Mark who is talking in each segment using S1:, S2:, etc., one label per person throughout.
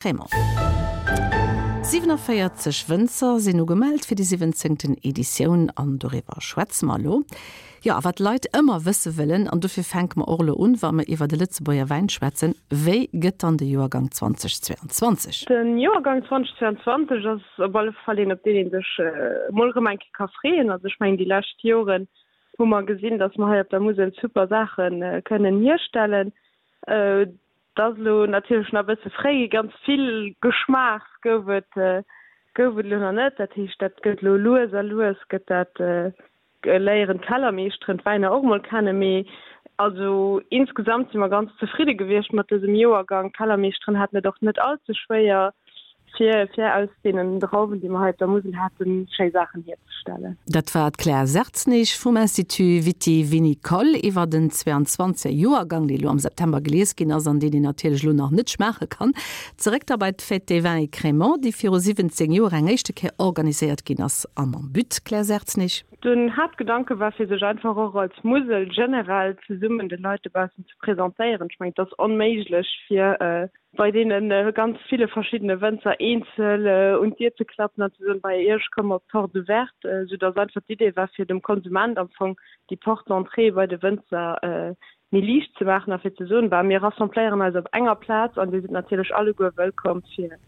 S1: Crémant. 47 Wënzer sinn ugemellt fir déi siwwenzéngten Editioun an doriwwer schwätze mer elo. Jo, a wat d'Leit ëmmer wësse wëllen, an dofir fänke mer och elo un, wa mer iwwer de Lëtzebuerger Wäin schwätzen, Wéi gëtt dann de Joergang 2022?
S2: De Joergang 2022 ass op alle Fall een, op deen ee sech emol erëm eng Kéier ka freeën. Also ech mengen, déi lescht Joren hu mer gesinn, datt mer hei op der Musel super Saache kënnen hierstellen. Et ass elo natierlech nach e bësse fréi, ganz vill Geschmaachs gouf et gouf et elo nach net. Dat heescht, dat gëtt elo lues a lues gëtt dat, léieren d'Kellermeeschteren d'Wäiner och emol kennen. Mee also insgesamt si mer ganz zefridde gewiescht mat dësem Joergang. D'Kellermeeschteren haten et och net all ze schwéier. fir fir aus deenen Drauwen, déi mer hei op der Musel haten, schéi Saachen hierzestellen.
S1: Dat war d'Claire Sertznig vum Institut Viti-Vinicole iwwer den 22. Joergang, dee lo am September gelies ginn ass an deen een natierlech elo nach net schmaache kann. Zeréck da bei d'Fête des Vins et Crémants, déi viru 17 Joer eng éischte Kéier organiséiert ginn ass a mam But, Claire Sertznig?
S2: Den Haaptgedanke war fir sech einfach och als Musel generell zesummen de Leit dobaussen ze presentéieren. Ech mengen, et ass onméiglech fir bei deene ganz ville verschiddene Wënzer eenzel un d'Dier ze klappen an ze soen, bei Iech komme mer op d'Porte ouverte, soudass einfach d'Idee war, fir dem Konsument am Fong déi Porte d'entrée bei de Wënzer méi liicht ze maachen a fir ze soen, bah, mir rassembléieren eis op enger Plaz an Dir sidd natierlech alleguer wëllkomm, fir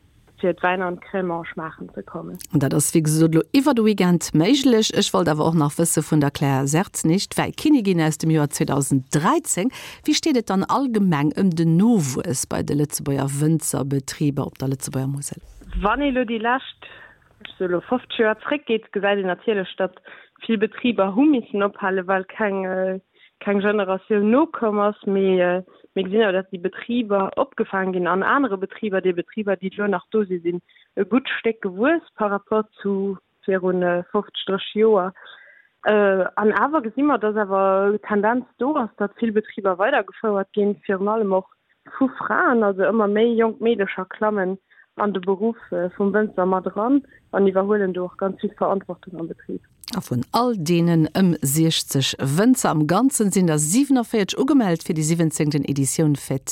S2: fir d'Wäiner an d'Crémant schmaachen ze kommen.
S1: An dat ass wéi gesot elo iwwer de Weekend méiglech. Ech wollt awer och nach wësse vun der Claire Sertznig, d'Wäikinnigin aus dem Joer 2013, Wéi steet et dann allgemeng ëm den Nowuess bei de Lëtzebuerger Wënzerbetriber op der Lëtzebuerger Musel?
S2: Wann ee elo déi lescht, ech soe elo 50 Joer zréckgeet, gesäit een natierlech, datt vill Betriber hu missen ophalen, well keng keng Generatioun nokomm ass. Mee mir gesinn awer, datt déi Betriber opgefaang ginn an anere Betriber. Déi Betriber, déi elo nach do sinn, sinn e gutt Stéck gewuess par rapport zu viru 50, 30 Joer. An awer gesi mer, datt awer d'Tendenz do ass, datt vill Betriber weidergefouert ginn, virun allem och vu Fraen. Also ëmmer méi jonk Meedecher klammen an de Beruff vum Wënzer mat eran an iwwerhuelen do och ganz vill Verantwortung am Betrib.
S1: A vun all deenen ëm 60 Wënzer am Ganzen sinn der 47 ugemellt fir déi siwwenzéngten Editioun Fête.